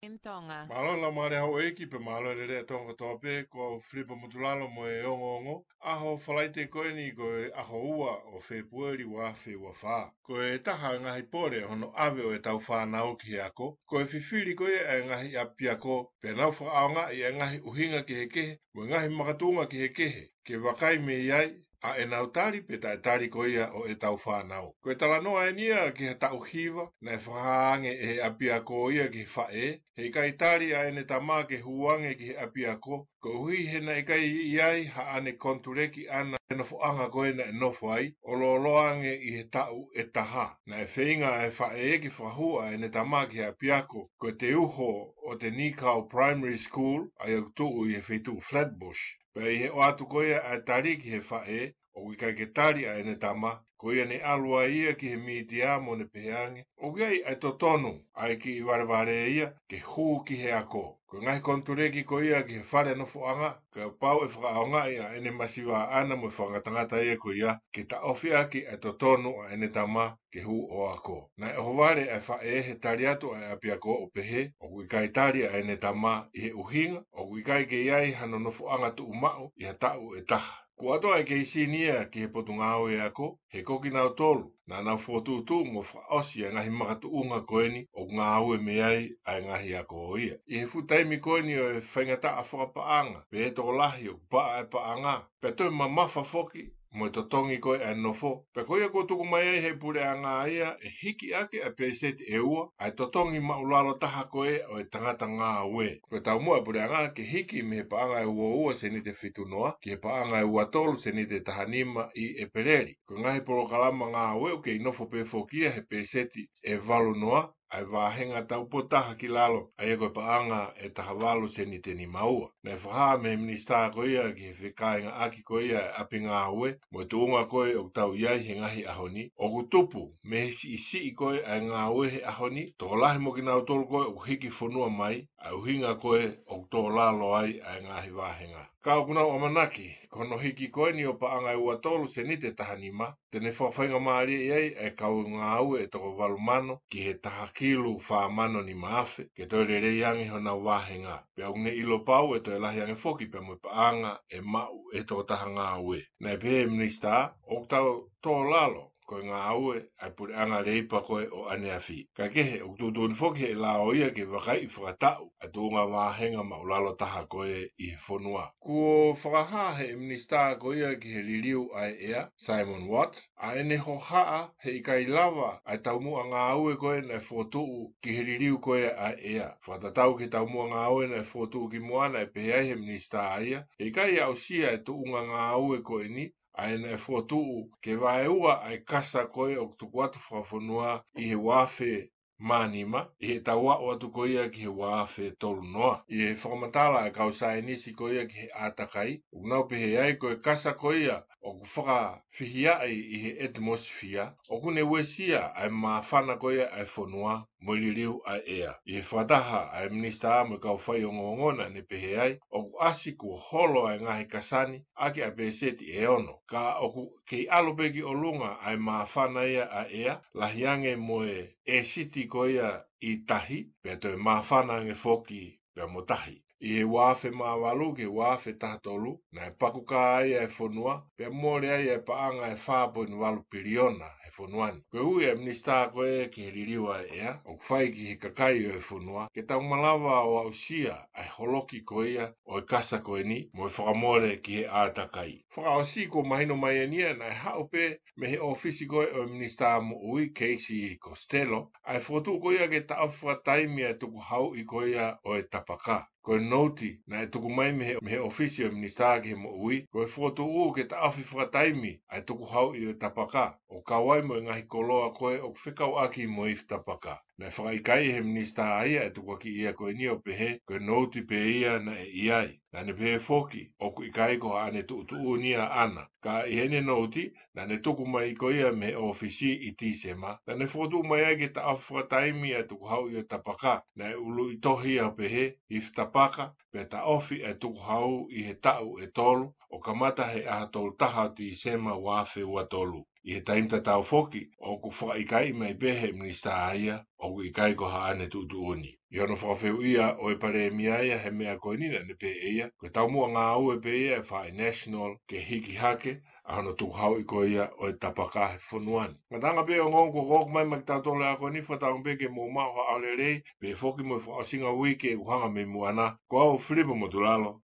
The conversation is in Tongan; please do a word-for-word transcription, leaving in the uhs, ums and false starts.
M Tonga. Mālō e laumālie houʻeiki pea mālō e lelei ʻa Tonga kotoa pē, ko Filipa Motulalo mo e ongoongo. ʻAho Falaite ko eni ko e ʻaho ua ʻo Fēpueli ua afe ua fā. Ko e taha e ngaahi pole hono ʻave ʻo ʻetau fānau ki he ako, ko e fifili ko ia e ngaahi ʻapiako, pea nau fakaʻaongaʻi e ngaahi ʻuhinga kehekehe, mo e ngaahi makatuʻunga kehekehe, ke vakai mei ai ʻa ʻenau tali pe taʻetali ko ia ʻo ʻetau fānau. Ko e talanoa eni ia ki ha taʻu hiva, naʻe fakahā ange ʻe he ʻapiako ia ki he faʻē, he ʻikai tali ʻa ʻene tama ke hū ange ki he ʻapiako, koeʻuhi he naʻe ʻikai ʻi ai haʻane konituleki ʻana e nofoʻanga ko ē naʻe nofo ai, ʻo lōloa ange ʻi he taʻu ʻe taha. Naʻe feinga ʻa e faʻē ke fakahū ʻa ʻene tama ki he ʻapiako, ko e teuho ʻo Te Nikau Primary School, ʻa ia ʻoku tuʻu ʻi he feituʻu Flatbush. Pea ʻi he ʻoatu ko ia ʻa e tali ki he faʻē, ʻoku ʻikai ke tali ʻa ʻene tama, ko ia ne ʻalu ai ia ki he mītia mo ne pehē ange, ʻoku ʻi ai ʻa e totonu ʻa e kiʻi valevale ia ke hū ki he ako. Ko e ngaahi konituleki ko ia ki he fale nofoʻanga, kapau ʻe fakaʻaongaʻi ʻa ʻene masiva ʻana mo e fakangatangata ia ko ia, ke taʻofi ʻaki ʻa e totonu ʻa ʻene tama ke hū ʻo ako. Naʻe ʻohovale ʻa e faʻē he tali atu ʻa e ʻapiako ʻo pehē, ʻoku ʻikai tali ʻa ʻene tama ʻi he ʻuhinga, ʻoku ʻikai ke ʻi ai hano nofoʻanga tuʻumaʻu ʻi ha taʻu ʻe taha. Kuo ʻoatu ʻa e keisi ni ia ki he Potungāue Ako, he ko kinautolu naʻa nau fokotuʻutuʻu mo fakaʻosi ʻa e ngaahi makatuʻunga ko eni ʻoku ngāue mei ai ʻa e ngaahi ako ia. ʻI he fuʻu taimi ko eni ʻo e faingataʻa fakapaʻanga, pea tokolahi ʻoku paʻa e paʻanga, pea toe mamafa foki mo e totongi ko ē ʻa e nofo, pea ko ia kuo tuku mai ai ʻe he puleʻanga ia ʻe hiki ʻaki ʻa e pēseti ʻe ua ʻa e totongi maʻulalo taha ko ē ʻo e tangata ngāue. Ko e taumuʻa ʻa e puleʻanga ke hiki mei he paʻanga ʻe ua ua sēniti ʻe fitu noa ki he paʻanga ʻe ua tolu sēniti ʻe taha nima ʻi ʻEpeleli. Ko e ngaahi polokalama ngāue ʻoku kei nofo pē foki ia he pēseti ʻe valu noa, ʻa e vāhenga taupotu taha ki lalo, ʻa ia ko e paʻanga ʻe taha valu sēniti ʻe nima ua. Naʻe fakahā mei he minisitā ko ia ki he fekāingaʻaki ko ia ʻa e ʻapi ngāue mo e tuʻunga ko ē ʻoku tau ʻi ai he ngaahi ʻaho ni, ʻoku tupu mei he siʻisiʻi ko ē ʻa e ngāue he ʻaho ni, tokolahi mo kinautolu ko ē ʻoku hiki fonua mai, ʻa e ʻuhinga ko ē ʻoku tō lalo ai ʻa e ngaahi vāhenga. Ka ʻoku nau ʻamanaki, ko hono hiki ko eni ʻo paʻanga ʻe ua tolu sēniti ʻe taha nima, te ne fakafaingamālieʻi ai ʻa e kau ngāue ʻe toko valu mano ki he taha kilu fā mano nima afe, ke toe lelei ange honau vāhenga. Pea ʻoku ne ʻilo pau ʻe toe lahi ange foki pea mo e paʻanga ʻe maʻu ʻe he tokotaha ngāue. Naʻe pehē ʻe he minisitā, ʻoku tau tō lalo ko e ngāue ʻa e puleʻanga leipa ko ē ʻo ʻaneafi. Kaekehe, ʻoku tuʻutuʻuni foki ʻe he lao ia ke vakaiʻi fakataʻu ʻa e tuʻunga vāhenga maʻulalo taha ko ē ʻi he fonua. Kuo fakahā ʻe he minisitā ko ia ki he liliu ʻa e ʻea, Simon Watt, ʻa ʻene hohaʻa he ʻikai lava ʻa e taumuʻa ngāue ko ē naʻe fokotuʻu ki he liliu ko ē ʻa e ʻea. Fakatatau ki he taumuʻa ngāue naʻe fokotuʻu kimuʻa, naʻe pehē ai ʻe he minisitā ia, he ʻikai aʻusia ʻa e tuʻunga ngāue ko eni, ʻa ia naʻe fokotuʻu ke vaeua ʻa e kasa ko ē ʻoku tuku atu fakafonua ʻi he ua afe mā nima, ʻi heʻetau aʻu atu ko ia ki he ua afe tolu noa. ʻI he fakamatala ʻa e kau saienisi ko ia ki he ʻātakai, ʻoku nau pehē ai ko e kasa ko ia ʻoku fakafihiaʻi ʻi he ʻetimosifia, ʻoku ne uesia ʻa e māfana ko ia ʻa e fonua mo e liliu ʻa e ʻea. ʻI he fakataha ʻa e minisitā mo e kau faiongoongo, naʻa ne pehē ai, ʻoku ʻasi kuo holo ʻa e ngaahi kasa ni ʻaki ʻa e pēseti ʻe ono, ka ʻoku kei ʻalu pē ki ʻolunga ʻa e māfana ia ʻa e ʻea, lahi ange mo e ʻēsiti ko ia ʻi tahi, pea toe māfana ange foki pea mo tahi. ʻI he ua afe mā valu ki he ua afe taha tolu, naʻe pakukā ai ʻa e fonua, pea mole ai ʻa e paʻanga ʻe fā poini valu piliona he fonua ni. Ko e ui ʻa e minisitā ko ē ki he liliu ʻa e ʻea, ʻoku fai ki he kakai ʻo e fonua, ke tau malava ʻo aʻusia ʻa e holoki ko ia ʻo e kasa ko eni, mo e fakamole ki he ʻātakai. Fakaʻosi, kuo mahino mai eni ia naʻe haʻu pē mei he ʻōfisi ko ē ʻo e minisitā moʻui, Casey Costello, ʻa e fokotuʻu ko ia ke taʻofi fakataimi ʻa e tukuhauʻi ko ia ʻo e tapaka. Ko e nouti naʻe tuku mai mei he, mei he ʻōfisi ʻo e minisitā ki he moʻui, ko e fokotuʻu ke taʻofi fakataimi ʻa e tukuhauʻi ʻo e tapaka, ʻo kau ai mo e ngaahi koloa ko ē ʻoku fekauʻaki mo e ifi tapaka. Naʻe fakaʻikaiʻi ʻe he minisitā ia ʻa e tukuakiʻi ia ko eni ʻo pehē ko e nouti pē ia naʻe ʻi ai. Naʻa ne pehē foki, ʻoku ʻikai ko haʻane tuʻutuʻuni ia ʻana. Ka ʻi heʻene nouti, naʻa ne tuku mai ko ia mei he ʻōfisi ʻi Tīsema, naʻa ne fokotuʻu mai ai ke taʻofi fakataimi ʻa e tukuhauʻi ʻo e tapaka. Naʻe ʻuluʻi tohi ia ʻo pehē, ifi tapaka, pea taʻofi ʻa e tukuhau ʻi he taʻu ʻe tolu, ʻo kamata he ʻaho tolu taha ʻo Tīsema ua afe ua tolu. ʻI he taimi tatau foki, ʻoku fakaʻikaiʻi mai pē he minisitā ia, ʻoku ʻikai ko haʻane tuʻutuʻuni. ʻI hono fakafehuʻia ʻo e palēmia ia he meʻa ko eni naʻa ne pehē ʻe ia, ko e taumuʻa ngāue pē ia ʻa e faʻē National ke hiki hake ʻa hono tukuhauʻi ko ia ʻo e tapaka he fonua ni. Ngataʻanga pē ongoongo kuo ʻoku mai maʻa kitautolu he ako ni, fakatauange pē ke mou maʻu ha ʻaho lelei, pehē foki mo e fakaʻosinga uike ʻoku hanga mei muʻa na, ko au Filipo Motulalo,